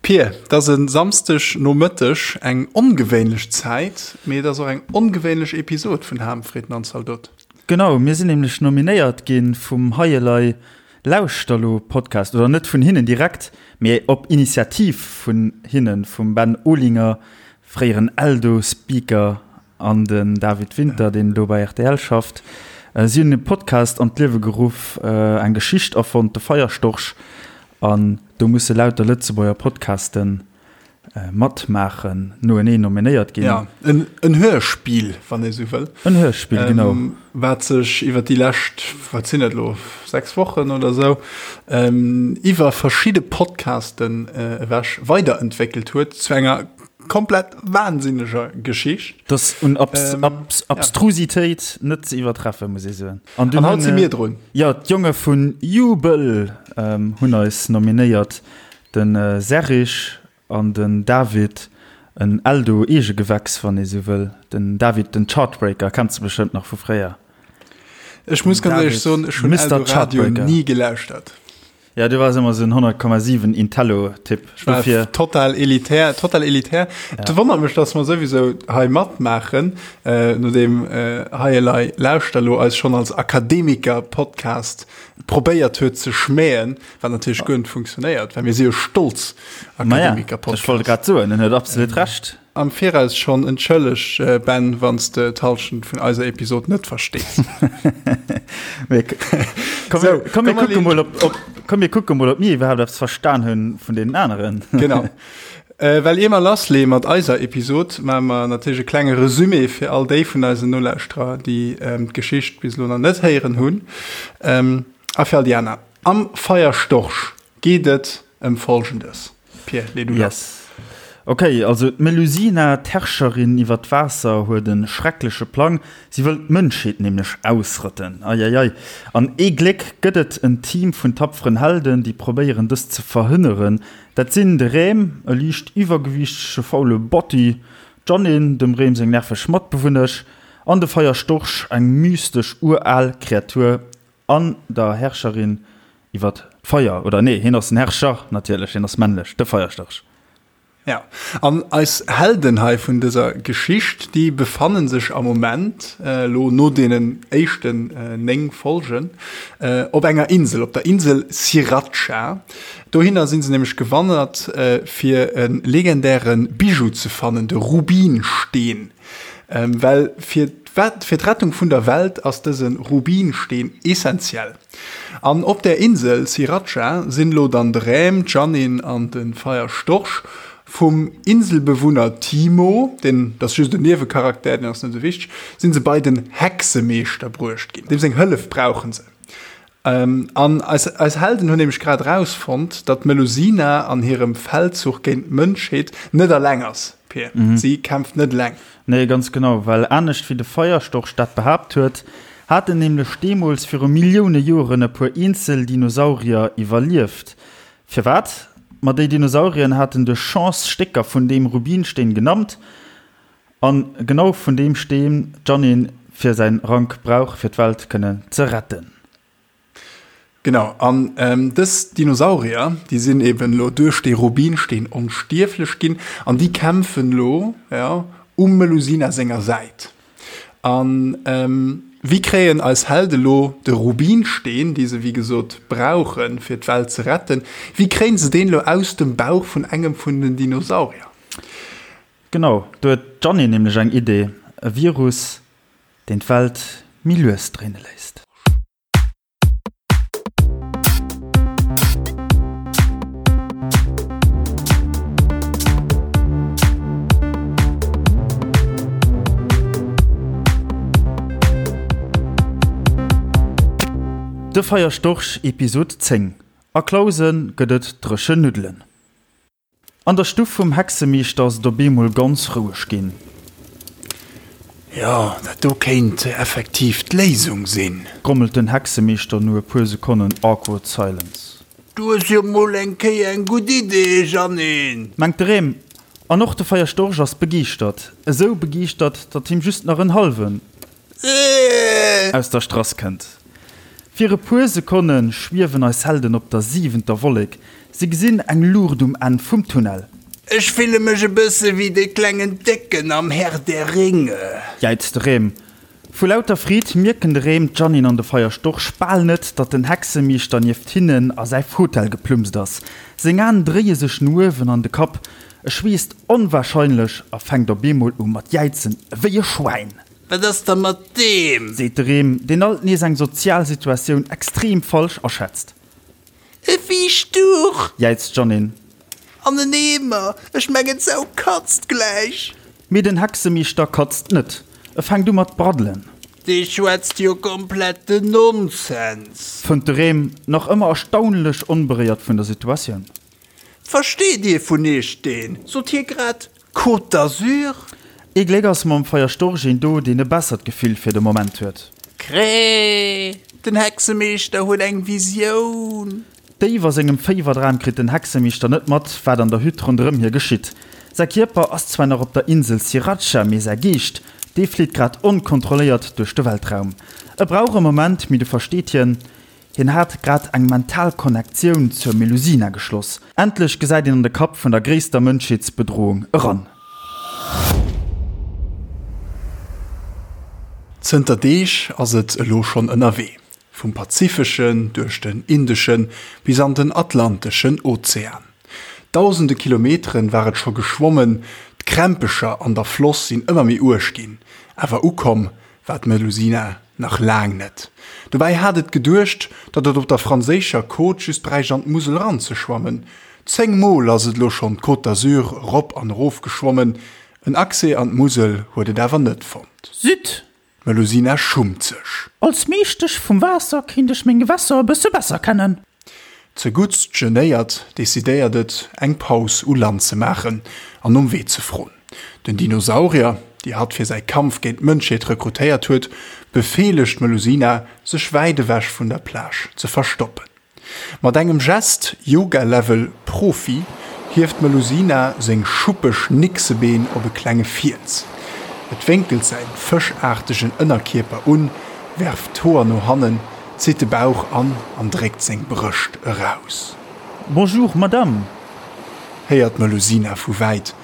Pir, et ass e Samsdeg Nomëtteg, eng ongewéinlech Zäit, mee et ass och eng ongewéinlech Episod vun Ham, Fritten an Zaldot. Genau, mir sinn nämlech nominéiert gi vum Hei Elei Lauschter Lo Podcast, oder net vun hinnen direkt, mee op Initiativ vun hinnen, vum Ben Olinger, fréieren Eldo-Speaker, an den David Winter, deen elo bei rtl schafft. Si hunn e Podcast an d'Liewe geruff, eng Geschicht erfonnt, de Feierstorch, an do musse lauter Lëtzebuerger Podcaste matmaachen, noeneen nominéiert ginn. Jo, en Hörspiel, wann ee sou wëll. En Hörspiel, genau. Wat sech iwwer déi lescht, wat sinn et elo, 6 Wochen oder sou, iwwer verschidde Podcasten ewech weiderentwéckelt huet zu enger komplett wahnsinneger Geschicht. Dat un Abs ähm, Abs Abstrusitéit ja. net ze iwwertreffen, muss ee soen. An, an haut si mir drun. Ja, d'Jonge vun Jubel ähm, hunn eis nominéiert. Den äh, Serich an den David, en Eldo Eegegewächs, wann ee sou wëll. Den David, den Chartbreaker, kenns du bestëmmt nach vu fréier. Ech muss ganz ehrlech soen, ech hunn Eldo Radio ni gelauschtert. Ja, du wars ëmmer sou en 100,7 Intello-Typ. Ech war Dofir. total elitär, total elitär. Ja. Et wonnert mech, dass mer souwisou hei matmaachen, äh, nodeem äh, Hei Elei Lauschter lo eis schonn als Akademiker-Podcast probéiert huet ze schmähen, wat natierlech guer net funktionéiert, well mir si jo stolz Ma ja, Akademiker-Podcast. ech wollt grad soen, en huet absolut Recht. Am Viraus schonn entschëlleg, Ben, wann s de d'Hallschent vun eiser Episod net verstees. Komm, mir kucke mol, ob, komm, mir kucke mol, ob mir iwwerhaapt eppes verstan hunn vun deenen aneren. Genau. Well ier mer lassleeë mat eiser Episod, maache mer natierlech e klenge Resumé fir all déi vun eisen Nolauschterer, déi d'Geschicht bis elo nach net héieren hunn, a fir all déi aner. Am Feierstorch geet et ëm Folgendes. Pir, lee du lass. Yes. Ok, also d'Melusina, d'Herrscherin iwwer d'Waasser, huet e schreckleche Plang, Si wëll d'Mënschheet nämlech ausrotten. Eieiei. An ee Gléck gëtt et en Team vun tapferen Helden, déi probéieren dëst ze verhënneren. Dat sinn de Rem, e liicht iwwergewiichtege faule Botti, d'Janine, dem Rem seng nerveg Matbewunnesch, an de Feierstorch, eng mystesch ural Kreatur An der Herrscherin iwwert d'Feier, oder nee, hien ass den Herrscher natierlech, hien ass männlech, de Feierstorch. Ja, an eis Helden hei vun dëser Geschicht, déi befanne sech am Moment, elo no deenen éischten 9 Folgen, op enger Insel, op der Insel Sriracha. Dohinner si se nämlech gewandert, fir e legendäre Bijou ze fannen, de Rubinsteen. Well fir fir d'Rettung vun der Welt ass dëse Rubinsteen essentiell. An op där Insel Sriracha sinn elo dann de Räm, d'Janine an de Feierstorch vum Inselbewunner Timo, deen ass just en Niewecharakter, deen ass net esou wichteg, sinn se bei den Hexemeeschter bruecht ginn. Deem seng Hëllef brauche se. An eis eis Helden hunn nämlech grad erausfonnt, datt d'Melusina an hirem Feldzuch géint d'Mënschheet net eleng ass, Pir. Si kämpft net eleng. Nee, ganz genau, well anescht wéi de Feierstorch dat behaapt huet, haten nämlech deemools viru Millioune Joren e puer eenzel Dinosaurier iwwerlieft. Firwat? Ma déi Dinosaurieren haten duerch Chance Stécker vun deem Rubinsteen genammt, An genau vun deem Steen d'Janine fir säin Rank brauch fir d'Welt kënnen ze retten. Genau, an dës Dinosaurier, déi sinn eben elo duerch dee Rubinsteen onstierflech ginn an déi kämpfen elo, jo, um Melusina senger Säit. An wéi kréien eis Helde lo de Rubinsteen, dee se wéi gesot brauchen fir d'Welt ze retten, wéi kréien se deen elo aus dem Bauch vun engem vun den Dinosaurier? Genau, do huet d'Jeanny nämlech eng Idee, e Virus, deen d'Welt méi lues dréine léisst. De Feierstorch Episod 10, A Clausen gëtt et dréchen Nuddelen. An der Stuff vum Hexemeeschter ass et op eemol ganz roueg ginn. Jo, dat do kéint effektiv d'Léisung sinn. Grommelt den Hexemeeschter no e puer Sekonnen awkward silence. Du hues jo mol eng Kéier eng gutt Idee, Jeannine! Mengt de Rem. An och de Feierstorch ass begeeschtert. Esou begeeschtert, datt him just nach en hallwen. Aus der Strass kënnt. Fir e puer Sekonne schwiewen eis Helden op der siwenter Wollek. Si gesinn eng Luucht um Enn vum Tunnel. Ech fille mech e bësse wéi dee klengen Décken am Herr der Ringe. Jäizt de Rem. Vu lauter Freed mierken de Rem, d'Jeannine an de Feierstorch bal net, datt den Hexemeeschter nieft hinnen a säi Fotell geplumst ass. Seng Aen dréie sech no uewen an de Kapp, e schweesst onwahrscheinlech a fänkt op eemol u mat jäizen ewéi e Schwäin. Wat ass da mat deem? Seet de Rem, deen alt nees eng sozial Situatioun extrem falsch aschätzt. E Fiichtduch! Jäizt d'Jeannine. An en Eemer! Ech mengen, d'Sau katzt gläich! Mee den Hexemeeschter katzt net. E fänkt u mat braddelen. Dee schwätzt jo kompletten Nonsens! Fënnt de Rem, nach ëmmer erstaunlech onberéiert vun der Situatioun. Versteet ee vun iech deen? Sot hie grad Côte d'Azur? Ee Gléck ass mam Feierstorch een do, deen e bessert Gefill fir de Moment huet. Cré! Den Hexemeeschter huet eng Visioun! Déif a sengem Féiwerdram kritt den Hexemeeschter net mat, wat an der Hütt ronderëm hie geschitt. Säi Kierper ass zwar nach op der Insel Sriracha, mee säi Geescht, dee flitt grad onkontrolléiert duerch de Weltraum. E brauch e Moment, mee du versteet hien, Hien hat grad eng mental Konnektioun zur Melusina geschloss. Endlech gesäit een an de Kapp vun der gréisster Mënschheetsbedroung eran. Zënter Deeg ass et elo schonn ënnerwee, vum Pazifeschen duerch den Indeschen bis an den Atlanteschen Ozean. Dausende Kilometeren war et scho geschwommen, d'Krämpecher an der Floss sinn ëmmer méi uerg ginn, awer ukomm war d'Melusina nach laang net. Dobäi hat et geduecht, datt et op der franséischer Côte just bräicht an d'Musel eranzeschwammen. 10 Mol ass et elo schonn d'Côte d'Azur erop an erof geschwommen, en Accès an d'Musel huet et awer net fonnt. Zut! D'Melusina schummt sech. Als Meeschtesch vum Waasser kéint ech meng Gewässer e bësse besser kennen. Zeguttst genéiert decidéiert et, eng Paus u Land ze maachen an nom Wee ze froen. Den Dinosaurier, déi hatt fir säi Kampf géint d'Mënschheet rekrutéiert huet, befeelegt d'Melusina, sech wäit ewech vun der Plage ze verstoppen. Mat engem Gest, Yoga-Level Profi, hieft d'Melusina seng schuppeg Nixebeen op e klenge Fiels. Et wénkelt säin fëschaartegen Ënnerkierper un, werft d'Hoer no hannen, zitt de Bauch an an dréckt seng Brëscht eraus. Bonjour, Madame! Héiert d'Melusina vu wäit.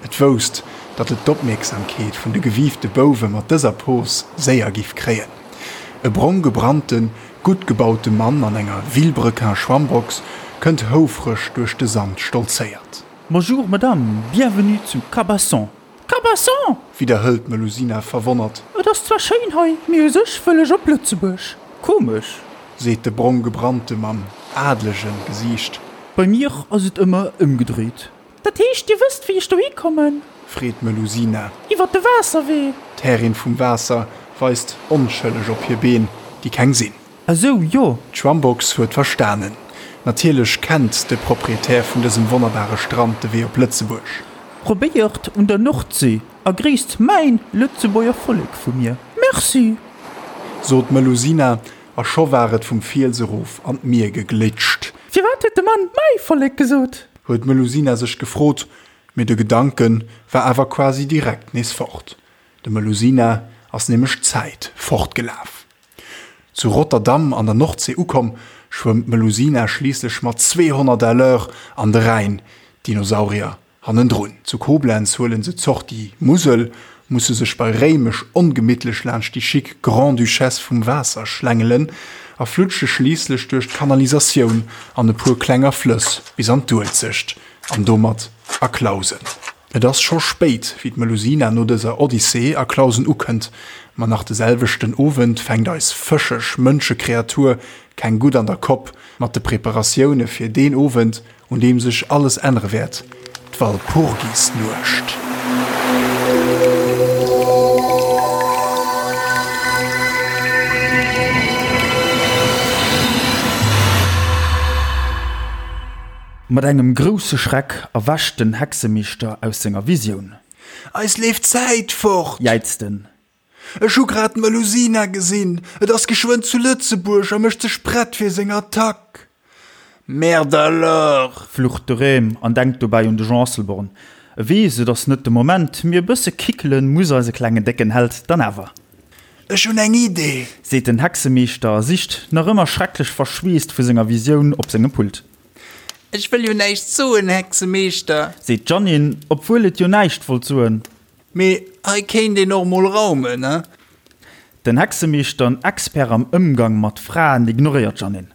Et wousst, datt et d'Opmierksamkeet vun de gewiifte Bouwe mat dëser Pos séier giff kréien. E brong gebrannten, gutt gebaute Mann an enger Vilebrequin-Schwammbox kënnt houfreg duerch de Sand stolzéiert. Bonjour, Madame, bienvenue zu Cabasson. Cabasson! Widderhëlt d'Melusina verwonnert. Et ass zwar schéin hei, mee u sech wëll ech op Lëtzebuerg. Komesch! Seet de brong gebrannte mam adelege Gesiicht. Bei mir ass et ëmmer ëmgedréit. Dat heescht, Dir wësst, wéi ech dohi kommen? Freet d'Melusina. Iwwer de Waasserwee. D'Härin vum Waasser weist onschëlleg op hir Been, déi keng sinn. Esou, jo. D'Schwammbox huet verstanen. Natierlech kennt de Proprietär vun dësem wonnerbare Strand de Wee op Lëtzebuerg. Probéiert un der Nordsee a gréisst mäin Lëtzebuerger Vollek vu mir. Merci! Sot d'Melusina, a scho war et vum Fiels erof an d'Mier geglitscht. Firwat huet de Mann mäi Vollek gesot? Huet d'Melusina sech gefrot, mee de Gedanke war awer quasi direkt nees fort. Dem Melusina ass nämlech d'Zäit fortgelaf. Zu Rotterdam an der Nordsee ukomm, schwëmmt d'Melusina schliisslech mat 200 à l'heure an de Rhäin, d'Dinosaurier Hannendrun, zu Koblenz huelen se d'Sortie Musel, musse sech bei Réimech ongemittlech laanscht déi chic Grande-Duchesse vum Waasser schlängelen a flutsche schliisslech duerch d'Kanalisatioun an e puer klenger Flëss bis an d'Uelzecht an domat a Clausen. Et ass scho spéit, wéi d'Melusina no dëser Odyssee a Clausen ukënnt, ma nach de selwechten Owend fänkt eis fëscheg Mënschekreatur keng gutt an der Kopp mat de Preparatioune fir deen Owend, Un deem sech alles ännere wäert, d'Walpurgisnuecht. Mat engem grousse Schreck erwächt den Hexemeeschter aus senger Visioun. Eis leeft d'Zäit fort! Jäizt en. Ech hu grad d'Melusina gesinn, et ass geschwënn zu Lëtzebuerg a mécht sech prett fir seng Attack. Merde alors! Flucht de Rem an denkt dobäi un de Jean Asselborn. E weess, et ass net de Moment, mee e bësse kickelen muss eise klengen décken Held dann awer. Ech hunn eng Idee! Seet den Hexemeeschter a sicht, nach ëmmer schrecklech verschweesst vu senger Visioun, op sengem Pult. Ech wëll jo näischt soen, Hexemeeschter. Seet d'Jeannine, obwuel et jo näischt wollt soen. Mee hei kéint een och mol raumen, he? Den Hexemeeschter, en Expert am Ëmgang mat Fraen, ignoréiert d'Jeannine.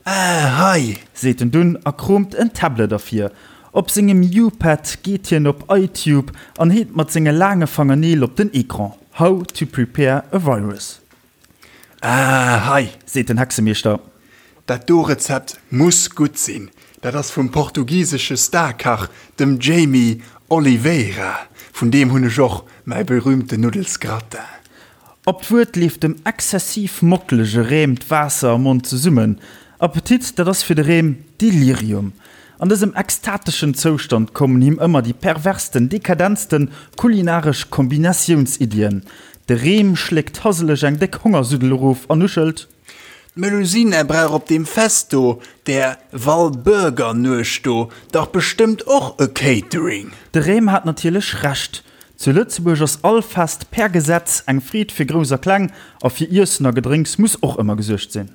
Ah, hei! Seet en dunn a kroomt en Tablet ervir. Op sengem U-Pad geet hien op iTube an heet mat senge laange Fangerneel op den Ecran, How to prepare a virus. Ah, hei! Seet den Hexemeeschter. Dat do Rezept muss gutt sinn. Dat ass vum portugisesche Starkach, dem Jamie Oliveira. Vun deem hunn ech och mäi berühmten Nuddelsgratin. Op d'Wuert leeft dem exzessiv mockelege Rem d'Waasser am Mond zesummen. Appetit, dat ass fir de Rem Delirium. An dësem extateschen Zoustand kommen him ëmmer déi perversten, dekadentsten kulinaresch Kombinatiounsiddien. De Rem schléckt haseleg eng déck Hongersuddel erof an nuschelt. D'Melusina brauch op deem Fest do, där Walburgernuecht do, dach bestëmmt och e Catering. De Rem hat natierlech Recht. Zu Lëtzebuerg ass all Fest per Gesetz eng Freed fir Grouss a Kleng, a fir Iessen a Gedrénks muss och ëmmer gesuergt sinn.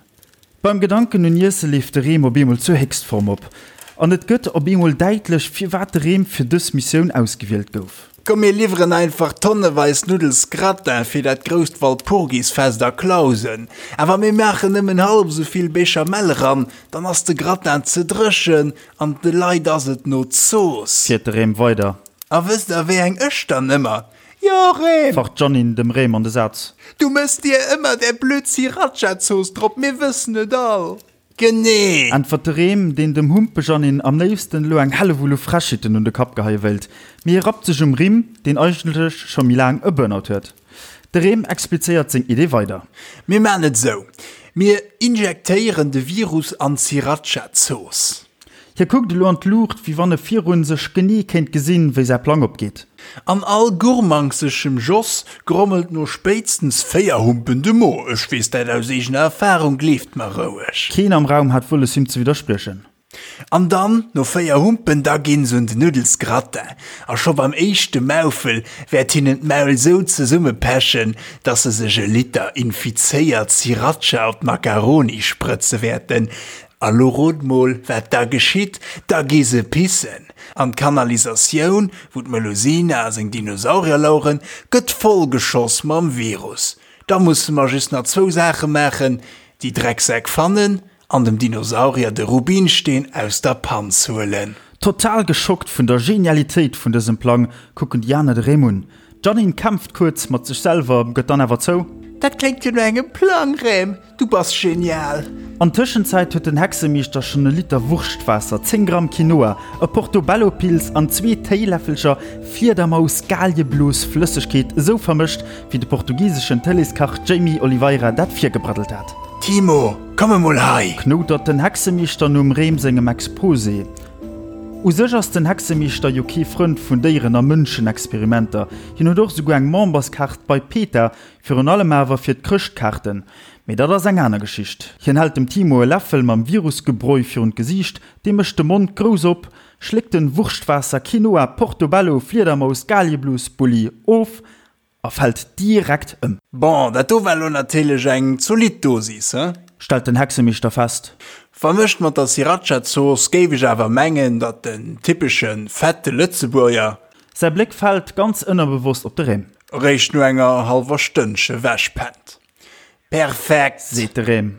Beim Gedanken un Iesse leeft de Rem op eemol zur Héchstform op, an et gëtt op eemol däitlech, firwat de Rem fir dës Missioun ausgewielt gouf. Komm mir liwweren einfach tonneweis Nuddelsgratin fir dat grousst Walpurgisfest a Clausen. Awer mir maachen nëmmen hallef esou vill Béchamel eran, dann ass de Gratin ze dréchen an de Leit ass et no Zooss. Fiert de Rem weider. A wësst der wéi eng ech dann ëmmer? Jo Rem! Facht d'Jeannine dem Rem an de Saz. Du mëss dir ëmmer där blöd Sriracha-Zooss drop, mir wëssen et all. Genee! Äntwert de Rem, deen dem Humpejanine am léifsten elo eng Hellewull u Frechheeten un de Kapp geheie wéilt. Mee hie rappt sech um Rimm, deen eigentlech scho méi laang e Burnout huet. De Rem explizéiert seng Idee weider. Mir maan et sou, Mir injektéieren de Virus an d'Sriracha-Zooss. Hie kuckt elo an d'Luucht, wéi wann e virun sech genee kéint gesinn, wéi säi Plang opgeet. An all gurmangseschem Joss grommelt no spéitstens 4 Humpen de Mo. Ech weess dat aus eegener Erfahrung, gleeft mer roueg. Keen am Raum hat wëlles him ze widderspriechen. An dann, no 4 Humpen, da ginn se un den Nuddelsgratin. A scho beim éischte Maufel wäert hinnen d'Maul sou zesummepechen, dass se sech e Liter infizéiert Sriracha op d'Makaroni sprëtze wäerten. A lo rot mol, wat da geschitt, Da gi se pissen! An d'Kanalisatioun, wou d'Melusina a seng Dinosaurier laueren, gëtt vollgeschoss mam Virus. Da musse mer just nach zwou Saache maachen, déi Drecksäck fannen an dem Dinosaurier de Rubinsteen aus der Panz huelen. Total geschockt vun der Genialitéit vun dësem Plang kucken déi aner de Rem un. D'Jeannine kämpft kuerz mat sech selwer, gëtt dann awer zou. Dat kléngt jo no engem Plang, Rem! Du bass genial! An Tëschenzäit huet den Hexemeeschter schonn e Liter Wurschtwaasser, 10 Gramm Quinoa, e Portobello-Pils an zwee Téiläffelcher Fliedermaus-Galieblos-Flëssegkeet esou vermëscht, wéi de portugiseschen Tëleeskach Jamie Oliveira dat virgebraddelt hat. Timo, komm emol hei! Knoutert den Hexemeeschter nom Rem sengem Exposé. U sech ass den Hexemeeschter jo kee Frënd vun Déieren a Mënschenexperimenter. Hien huet och esouguer eng Memberskaart bei PETA, Virun allem awer fir d'Chrëschtkaarten. Mee dat ass eng aner Geschicht. Hien hält dem Timo e Läffel mam Virusgebräu virun d'Gesiicht, dee mécht de Mond grouss op, schléckt den Wurschtwaasser, Quinoa, Portobello, Fliedermaus, Galieblos, Bulli of a fält direkt ëm. Bon, dat do war lo natierlech eng zolidd Dosis, he? Stellt den Hexemeeschter fest. Vermëscht mat der Sriracha-Zooss géif ech awer mengen, datt den typesche fette Lëtzebuerger Säi Bléck fält ganz ënnerbewosst op de Rem. Eréischt no enger hallwer Stënnche wechpennt. Perfekt! Seet de Rem.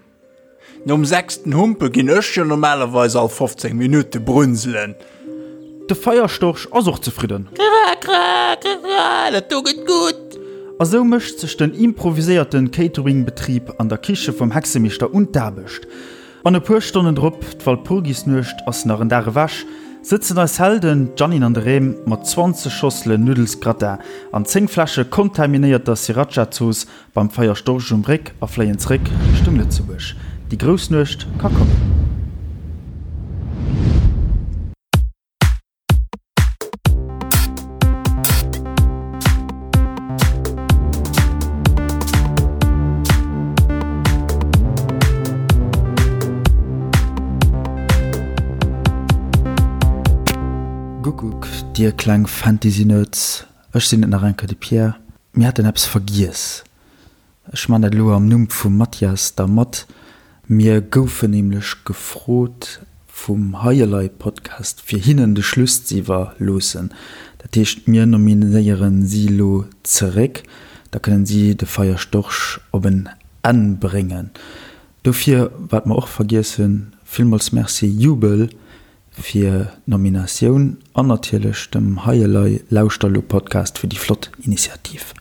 Nom sechsten Humpe ginn ech jo normalerweis all 15 Minutte brunselen. De Feierstorch ass och zefridden. Kra, kra, kra, kra, dat do gëtt gutt! A sou mécht sech den improviséierten Catering-Betrib an der Kiche vum Hexemeeschter un d'Aarbecht. An e puer Stonnen drop, d'Walpurgisnuecht ass nach en Dag ewech, sëtzen eis Helden, d'Jeannine an de Rem, mat 20 Schosselen Nuddelsgratin an 10 Fläsche kontaminéierter Sriracha-Zooss beim Feier Storch um Réck a fléien zréck Richtung Lëtzebuerg. Déi grouss Nuecht ka kommen. Guckuck, dir kleng Fantasy-Nerds, ech sinn et nach eng Kéier, de Pierre. Mir haten eppes vergiess. Ech man dat elo am Numm vum Mathias da mat. Mir goufen nämlech gefrot. Vum Hei Elei Podcast fir hinnen de Schluss ze iwwerloossen. Dat heescht mir nominéieren si elo zeréck, da kënnen si de Feierstorch op en Enn bréngen. Dofir, wat mer och vergiess hunn, villmools Merci Jubel fir d'Nominatioun an natierlech dem Hei Elei Lauschter elo Podcast fir déi flott Initiativ.